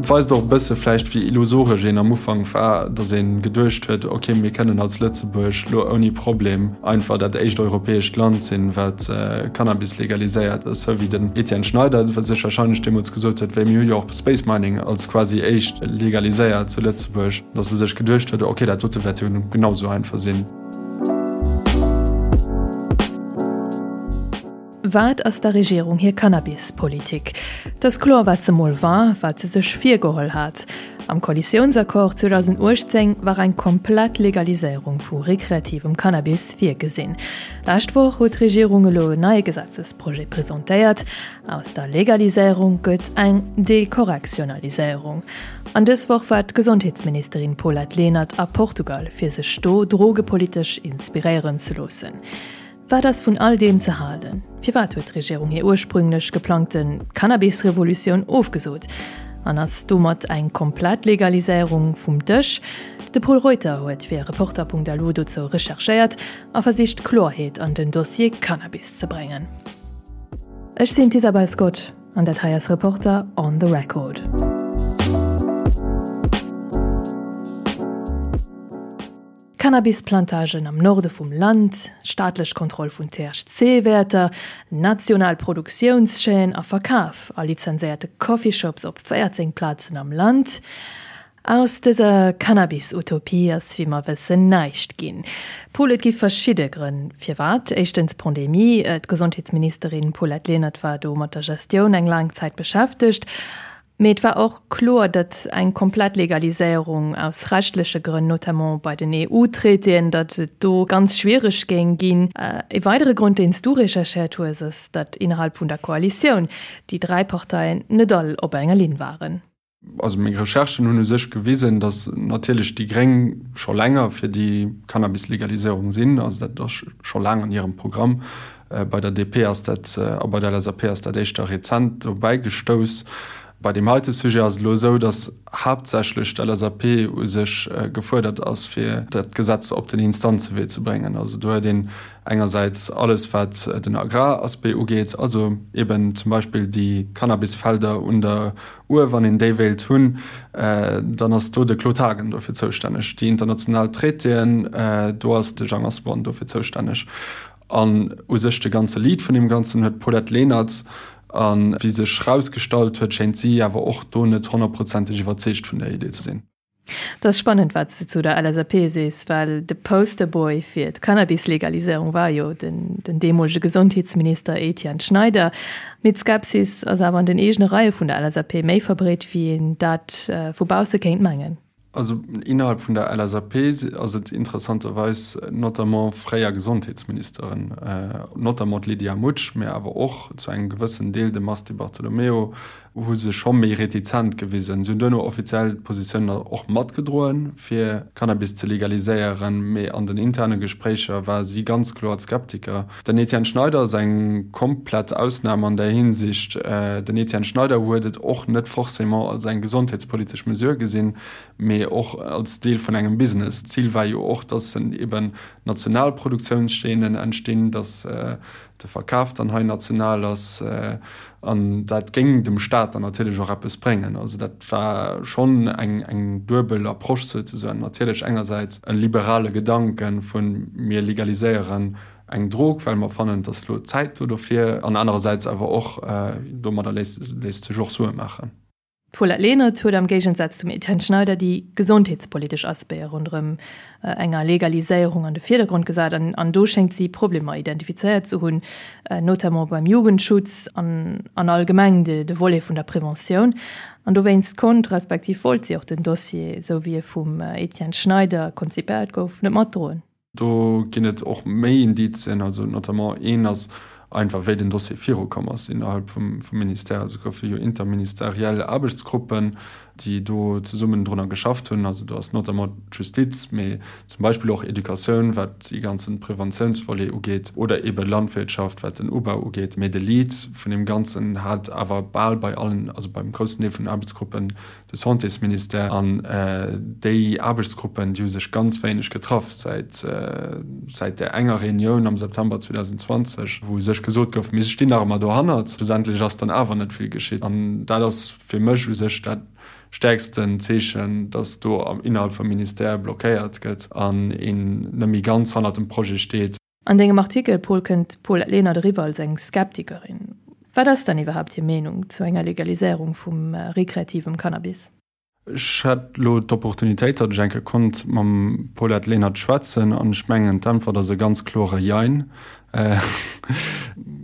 Et weist och e bësse vläicht, wéi illusoresch een am Ufank war, datt ee geduecht huet, ok, mir kënnen als Lëtzebuerg lo ouni Problem einfach dat éischt europäescht Land sinn, wat Cannabis legaliséiert. Esou wéi den Etienne Schneider sech warscheinlech deemools gesot huet, wéi mir hu jo och Space Mining als quasi éischt legaliséiert zu Lëtzebuerg, datt e sech geduecht huet, ok, dat dote wäert jo genau esou einfach sinn. Wat ass der Regierung hir Cannabis-Politik? Et ass kloer, wat se mol war, wat se sech virgeholl hat. Am Koalitiounsaccord 2018 war eng komplett Legaliséierung vu rekreativem Cannabis virgesinn. Lescht Woch huet d'Regierung elo en neie Gesetzesprojet presentéiert. Aus der Legaliséierung gëtt eng Dekorrektionaliséierung. An dës Woch war d'Gesondheetsministerin Paulette Lenert a Portugal, fir sech do drogepolitesch inspiréieren ze loossen. Wat ass vun all deem ze halen? Firwat huet d'Regierung hir ursprünglech geplangte Cannabis-Revolutioun ofgesot? An ass domat eng komplett Legaliséierung vum Dësch? De Pol Reuter huet fir Reporter.lu dozou recherchéiert a versicht Kloerheet an den Dossier Cannabis ze bréngen. Ech sinn d'Isabel Scott an dat hei ass Reporter on the Record. Cannabisplantagen am Norde vum Land, staatlech Kontroll vun THC-Wäerter, national Produktiounschaîne a Verkaf a lizenséierte Coffeeshops op 14 Plazen am Land. Aus dëser Cannabis-Utopie ass wéi mer wëssen näischt ginn. Paul, et gi verschidde Grënn firwat. Éischtens d'Pandemie, d'Gesondheetsministerin Paulette Lenert war do mat der Gestioun eng laang Zäit beschäftegt. Mee et war och kloer, datt eng komplett Legaliséierung aus rechtleche Grënn, notamment bei den EU-Traitéen, datt et do ganz schwiereg géing ginn. E weidere Grond, deen s du recherchéiert hues, ass, datt innerhalb vun der Koalitioun déi 3 Parteien net all op enger Linn waren. Also meng Recherchen hunn u sech gewisen, datt natierlech déi Gréng scho länger fir déi Cannabis-Legaliséierung sinn. Also dat ass scho laang an hirem Programm. Bei der DP ass dat a bei der LSAP ass dat éischter rezent dobäi gestouss. Bei deem heite Sujet ass et elo esou, datt haaptsächlech d'LSAP u sech gefuerdert ass, fir dat Gesetz op den Instanzewee ze bréngen. Also do huet een engersäits alles wat den Agraraspect ugeet, also eben zum Beispill déi Cannabisfelder un der Uhr, wann een déi wéilt hunn, dann ass do de Claude Haagen dofir zoustänneg. Déi international Traitéen, do ass de Jang Asselborn dofir zoustänneg. An u sech de ganze Lead vun deem Ganzen huet d'Paulette Lenert. A wéi sech erausgestallt huet, schéint si awer och do net honnertprozenteg iwwerzeegt vun der Idee ze sinn. Et ass spannend, wat s de zu der LSAP sees, well de Posterboy fir d'Cannabis-Legaliséierung war jo den deemolege Gesondheetsminister Etienne Schneider. Mee d'Skepsis ass awer an den eegene Reie vun der LSAP méi verbreet, wéi een dat vu bausse kéint mengen. Also innerhalb vun der LSAP ass et interessanterweis notamment fréier Gesondheetsministeren, notamment d'Lydia Mutsch, mä awer och zu engem gewëssen Deel de Mars Di Bartolomeo, hu sech scho méi retizent gewisen. Si hunn duerno offiziell d'Positioun och matgedroen, fir Cannabis ze legaliséieren, mee an den interne Gespréicher war si ganz kloer d'Skeptiker. Den Etienne Schneider ass eng komplett Ausnam an där Hinsicht. Den Etienne Schneider huet et och net forcément als eng gesondheetspolitesch Mesure gesinn, mee och als Deel vun engem Business. D'Zil war jo och, dass eben national Produktiounschaînen entstinn, dass de Verkaf dann hei national ass an dat géing dem Staat dann natierlech och eppes bréngen. Also dat war schonn eng eng duebel Approche souzesoen. Natierlech engersäits e liberale Gedanke vu mir legaliséieren eng Drog, well mer fannen, et ass elo d'Zäit do dofir, an anerersäits awer och domadder léisst sech och Sue maachen. D'Paulette Lenert huet am Géigensaz zum Etienne Schneider déi gesondheetspolitesch Aspecte ronderëm enger Legaliséierung an de Virdergrond gesat an do schéngt si Problemer identifizéiert ze hunn, notamment beim Jugendschutz an an allgemeng de Volet vun der Preventioun. An dowéinst konnt, respektiv wollt si och den Dossier, esou wéi e vum Etienne Schneider konzipéiert gouf, net matdroen. Do ginn et och méi Indizien, also notamment een ass einfach, wéi den Dossier virukomm ass innerhalb vum Ministère. Also et goufe jo interministeriell Aarbechtsgruppen, déi do zesummen drunner geschafft hunn. Also do ass notamment d'Justiz, mee zum Beispill och Educatioun, wat dee ganze Preventiounsvolet ugeet, oder eebe Landwirtschaft, wat den Ubau ugeet. Mee de Lead vun deem Ganzen hat awer bal bei allen, also beim groussen Deel vun den Aarbechtsgruppen, de Santésministère an déi Aarbechtsgruppen, déi hu sech ganz wéineg getraff säit säit där enger Reunioun am September 2020, wou u sech gesot gouf, mir stinn nach ëmmer dohannert. Schlussendlech ass dann awer net vill geschitt. An dat ass fir mech u sech dat. stäerksten Zeechen, datt do innerhalb vum Ministère blockéiert gëtt an een net méi ganz hannert dem Projet steet. An dengem Artikel, Paul, kënnt d'Paulette Lenert eriwwer als eng Skeptikerin. Wat ass dann iwwerhaapt hir Meenung zu enger Legaliséierung vum rekreativem Cannabis? Ech hat elo d'Opportunitéit, datt ech eng Kéier konnt mam Paulette Lenert schwätzen an ech mengen, d'Äntwert ass e ganz klore Jein.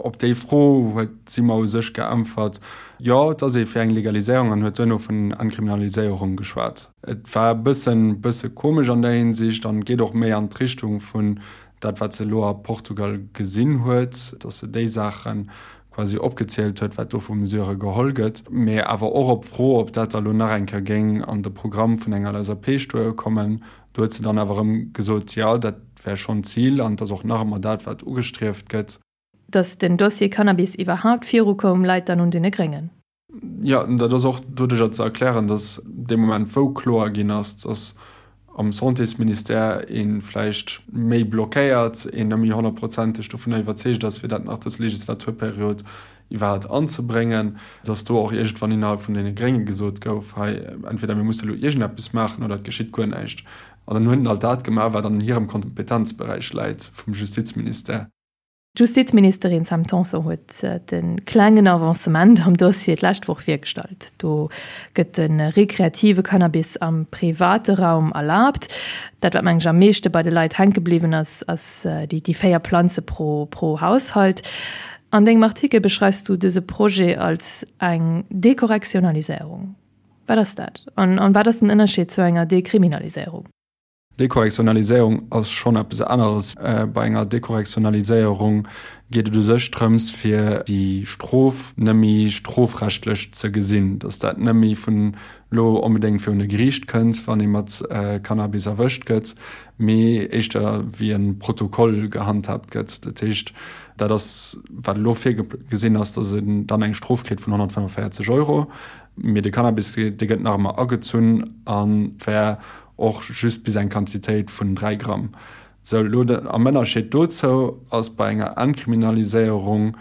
Op déi Fro huet si mer u sech geäntwert, Jo, et ass ee fir eng Legaliséierung an huet duerno vun Entkriminaliséierung geschwat. Et war e bëssen, bësse komesch an där Hinsicht an geet och méi an d'Richtung vun dat, wat se elo a Portugal gesinn huet, datt se déi Saache quasi opgezielt huet, wat do vu Mesurë geholl gëtt, mee awer och op d'Fro, ob dat da lo nach eng Kéier géing an de Programm vun enger LSAP stoe kommen, do huet se dann awer erëm gesot, jo, dat wär schonn d'Zil an et ass och nach ëmmer dat, wat ugestrieft gëtt. Datt den Dossier Cannabis iwwerhaapt virukoum, läit dann un deene Gréngen. Jo, dat ass och doduercher ze erklären, datt dee Moment, wou kloer ginn ass, datt am Santésministère ee vläicht méi blockéiert, een net méi honnertprozenteg dovunner iwwerzeegt ass, fir dat nach dës Legislaturperiod iwwerhaapt anzebréngen, datt do och iergendwann innerhalb vun deene Grénge gesot gouf, hei, entweder mir musse elo iergendeppes maachen oder et geschitt guer näischt. An dann hunn halt dat gemaach, wat an hirem Kompetenzberäich läit vum Justizministère. D'Justizministerin Sam Tanson huet de klengen Avancement am Dossier d'lescht Woch virgestallt. Do gëtt de rekreative Cannabis am private Raum erlaabt. Dat, wat meng ech am meeschte bei de Leit hänke bliwwen ass, ass déi 4 Planze pro pro Haushalt. An dengem Artikel beschreifs du dëse Projet als eng Dekorrektionaliséierung. Wat ass dat? An wat ass den Ënnerscheed zu enger Dekriminaliséierung? Dekorrektionaliséierung ass schonn eppes aneres. Bei enger Dekorrektionaliséierung geet et u sech drëms, fir déi Strof net méi strofrechtlech ze gesinn, datt dat net méi vun elo onbedéngt virun e Geriicht kënnt, wann ee mat Cannabis erwëscht gëtt, mee éischter wéi e Protokoll gehandhaabt gëtt. Dat heescht, dat ass, wat elo virgesinn ass, datt een dann eng Strof kritt vun 145 Euro, mee de Cannabis, dee gëtt nach ëmmer agezunn a wär Och just bis eng Quantitéit vun 3 Gramm. Sou, elo de, am Ënnerscheed dozou ass bei enger Entkriminaliséierung,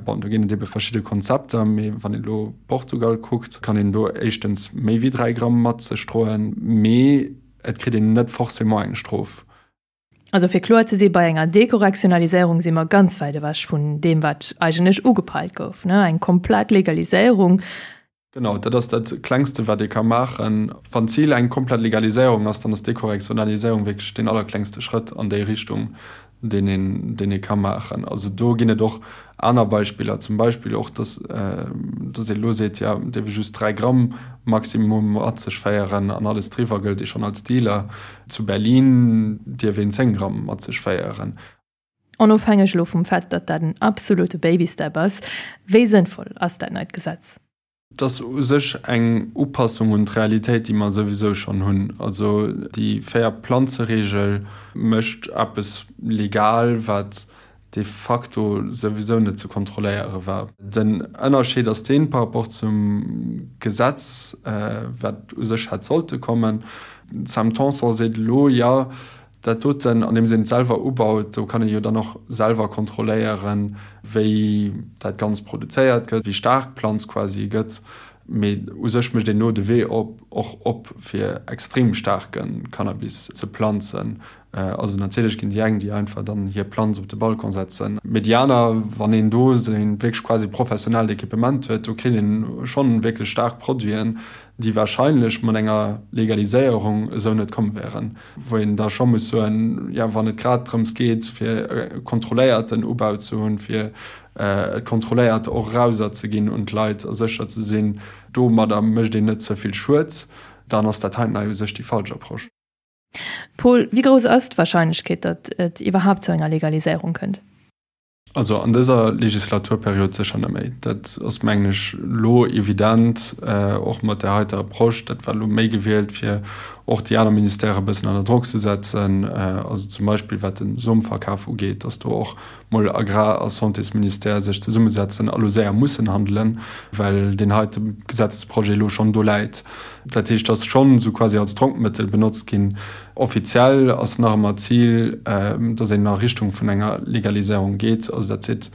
bon, do ginn et ebe verschidde Konzepter, mee wann een elo Portugal kuckt, kann een do éischtens méi wéi 3 Gramm mat sech droen, mee et kritt een net forcément eng Strof. Also fir kloer ze si, bei enger Dekorrektionaliséierung si mer ganz wäit ewech vun deem, wat eigentlech ugepeilt gouf, ne, eng komplett Legaliséierung. Genau, dat ass dat Klengste, wat ee ka maachen. Wann d'Zil eng komplett Legaliséierung ass, dann ass Dekorrektionaliséierung wierklech deen allerklengste Schrëtt an déi Richtung, deen een, deen ee ka maachen. Also do ginn et och aner Beispiller, zum Beispill och, dass, dass ee elo seet, jo, et dierf ee just 3 Gramm Maximum mat sech féieren an alles driwwer gëllt ee schonn als Dealer. Zu Berlin dierf een 10 Gramm mat sech féieren. Onofhängeg elo vum Fait, datt dat en absolute Babystep ass, wéi sënnvoll ass dat neit Gesetz? Et ass u sech eng Upassung un d'Realitéit, déi mer souwisou schonn hunn. Also déi Véier-Planze-Reegel mécht eppes legal, wat de facto souwisou net ze kontrolléiere war. Den Ënnerscheed ass deen, par rapport zum Gesetz, wat u sech hätt sollte kommen, d'Sam Tanson seet elo, jo, dat doten, andeems een et selwer ubaut, do kann ee jo dann och selwer kontrolléieren, wéi dat Ganzt produzéiert gëtt, wéi staark d'Planz quasi gëtt. Mee u sech mécht een elo de Wee op, och op, fir extrem staarke Cannabis ze planzen. Also natierlech ginn déi eng, déi einfach dann hir Planz op de Balcon setzen, mee déi aner, wann een do seng wierklech quasi professionellt Equipement huet, do kritt een schonn wierklech staark Produiten, déi wahrscheinlech mat enger Legaliséierung esou net komm wären. Wou een da scho muss soen, jo, wann et grad drëms geet, fir e kontrolléierten Ubau ze hunn, fir et kontrolléiert och erauserzeginn un d'Leit a sécher ze sinn, domadder mécht een net ze vill Schued, dann ass dat heiten hei u sech déi falsch Approche. Paul, wéi grouss ass d'Warscheinlechkeet, datt et iwwerhaapt zu enger Legaliséierung kënnt? Also an dëser Legislaturperiod sécher net méi. Dat ass, mengen ech, elo evident, och mat där heiter Approche. Dat war elo méi gewielt, fir och déi aner Ministèrë e bëssen ënner Drock ze setzen, also zum Beispill wat de Somverkaf ugeet, datt do och mol Agrar a Santésministère sech zesummesetzen a lo séier mussen handelen, well deen heite Gesetzesprojet elo schonn do läit. Dat heescht, ass schonn esou quasi als Drockmëttel benotzt ginn. Offiziell ass nach ëmmer d'Zil, datt een a Richtung vun enger Legaliséierung geet. Also dat seet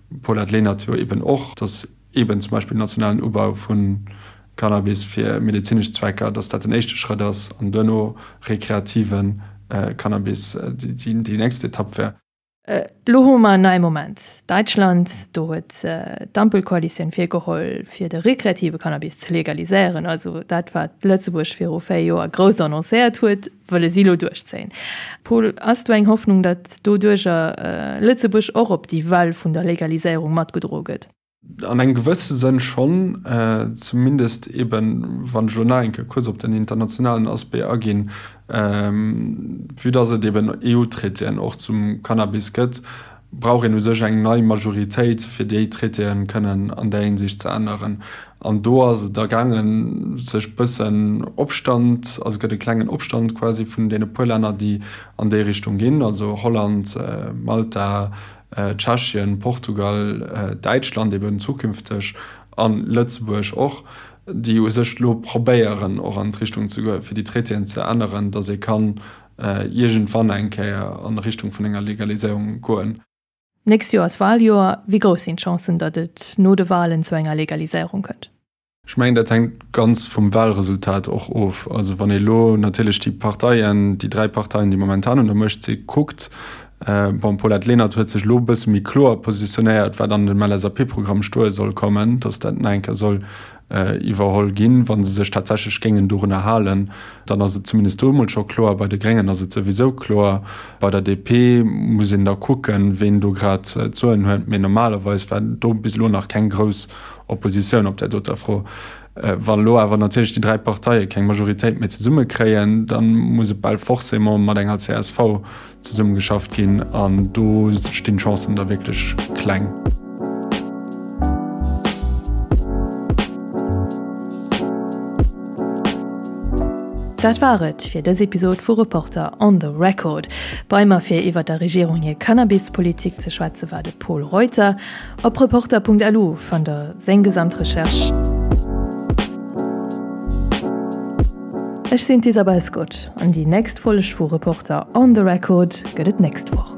d'Paulette Lenert jo eben och, datt eeben zum Beispill nationalen Ubau vu. Cannabis fir medezinesch Zwecker, datt dat den éischte Schrëtt ass an duerno rekreative Cannabis déi nächst Etapp wär. Elo hu mer en neie Moment. Däitschland, do huet d'Ampelkoalitioun virgeholl, fir de rekreative Cannabis ze legaliséieren. Also dat, wat Lëtzebuerg viru 4 Joer grouss annoncéiert huet, wëlle si elo duerchzéien. Paul, ass do eng Hoffnung, datt doduercher Lëtzebuerg och op déi Well vun der Legaliséierung matgedroe gëtt? An engem gewësse Sënn schonn, zumindest eben, wann ech elo nach eng Kéier kuerz op den internationalen Aspect aginn, vue dass et eben EU-Traitéen och zum Cannabis gëtt, brauch een u sech eng nei Majoritéit, fir déi Traitéen kënnen an där Hinsicht ze änneren. An do ass et da gaangen, sech bëssen Opstand, also gëtt e klengen Opstand quasi vun deene puer Länner, déi an déi Richtung ginn, also Holland, Malta, Tschechien, Portugal, Däitschland eben zukünfteg an Lëtzebuerg och, déi u sech elo probéieren och an d'Richtung ze goen, fir déi Traitéen ze änneren, datt ee kann iergendwann eng Kéier an Richtung vun enger Legaliséierung goen. Nächst Joer ass Waljoer. Wéi grouss sinn d'Chancen, datt et no de Walen zu enger Legaliséierung kënnt? Ech mengen, dat hänkt ganz vum Wahlresultat och of. Also wann ee elo natierlech déi Parteien, déi dräi Parteien, déi momentan un der Muecht si kuckt, bon, d'Paulette Lenert huet sech elo e bësse méi kloer positionéiert, wat an dem LSAP-Programm stoe soll kommen, datt dat nach eng Kéier soll iwwerholl ginn, wa se sech tatsächlech géingen dorunner halen, dann ass et zumindest do emol scho kloer. Bei de Gréngen ass et souwisou kloer. Bei der DP muss een da kucken, ween do grad d'Soen huet, mee normalerweis war do bis elo nach keng grouss Oppositioun op där doter Fro. Wann elo awer natierlech déi dräi Parteie keng Majoritéit méi zesumme kréien, da muss et bal forcément mat enger csv zesummegeschafft ginn an do stinn d'Chancen da wierklech kleng. Dat war et fir dës Episod vu Reporter on the Record. Bei mer fir iwwer der Regierung hir Cannabispolitik ze schwätze war de Pol Reuter. Op Reporter.lu fannt der seng gesamt Recherche. Ech sinn d'Isabel Scott an déi nächst Folg vu Reporter on the Record gëtt et nächst Woch.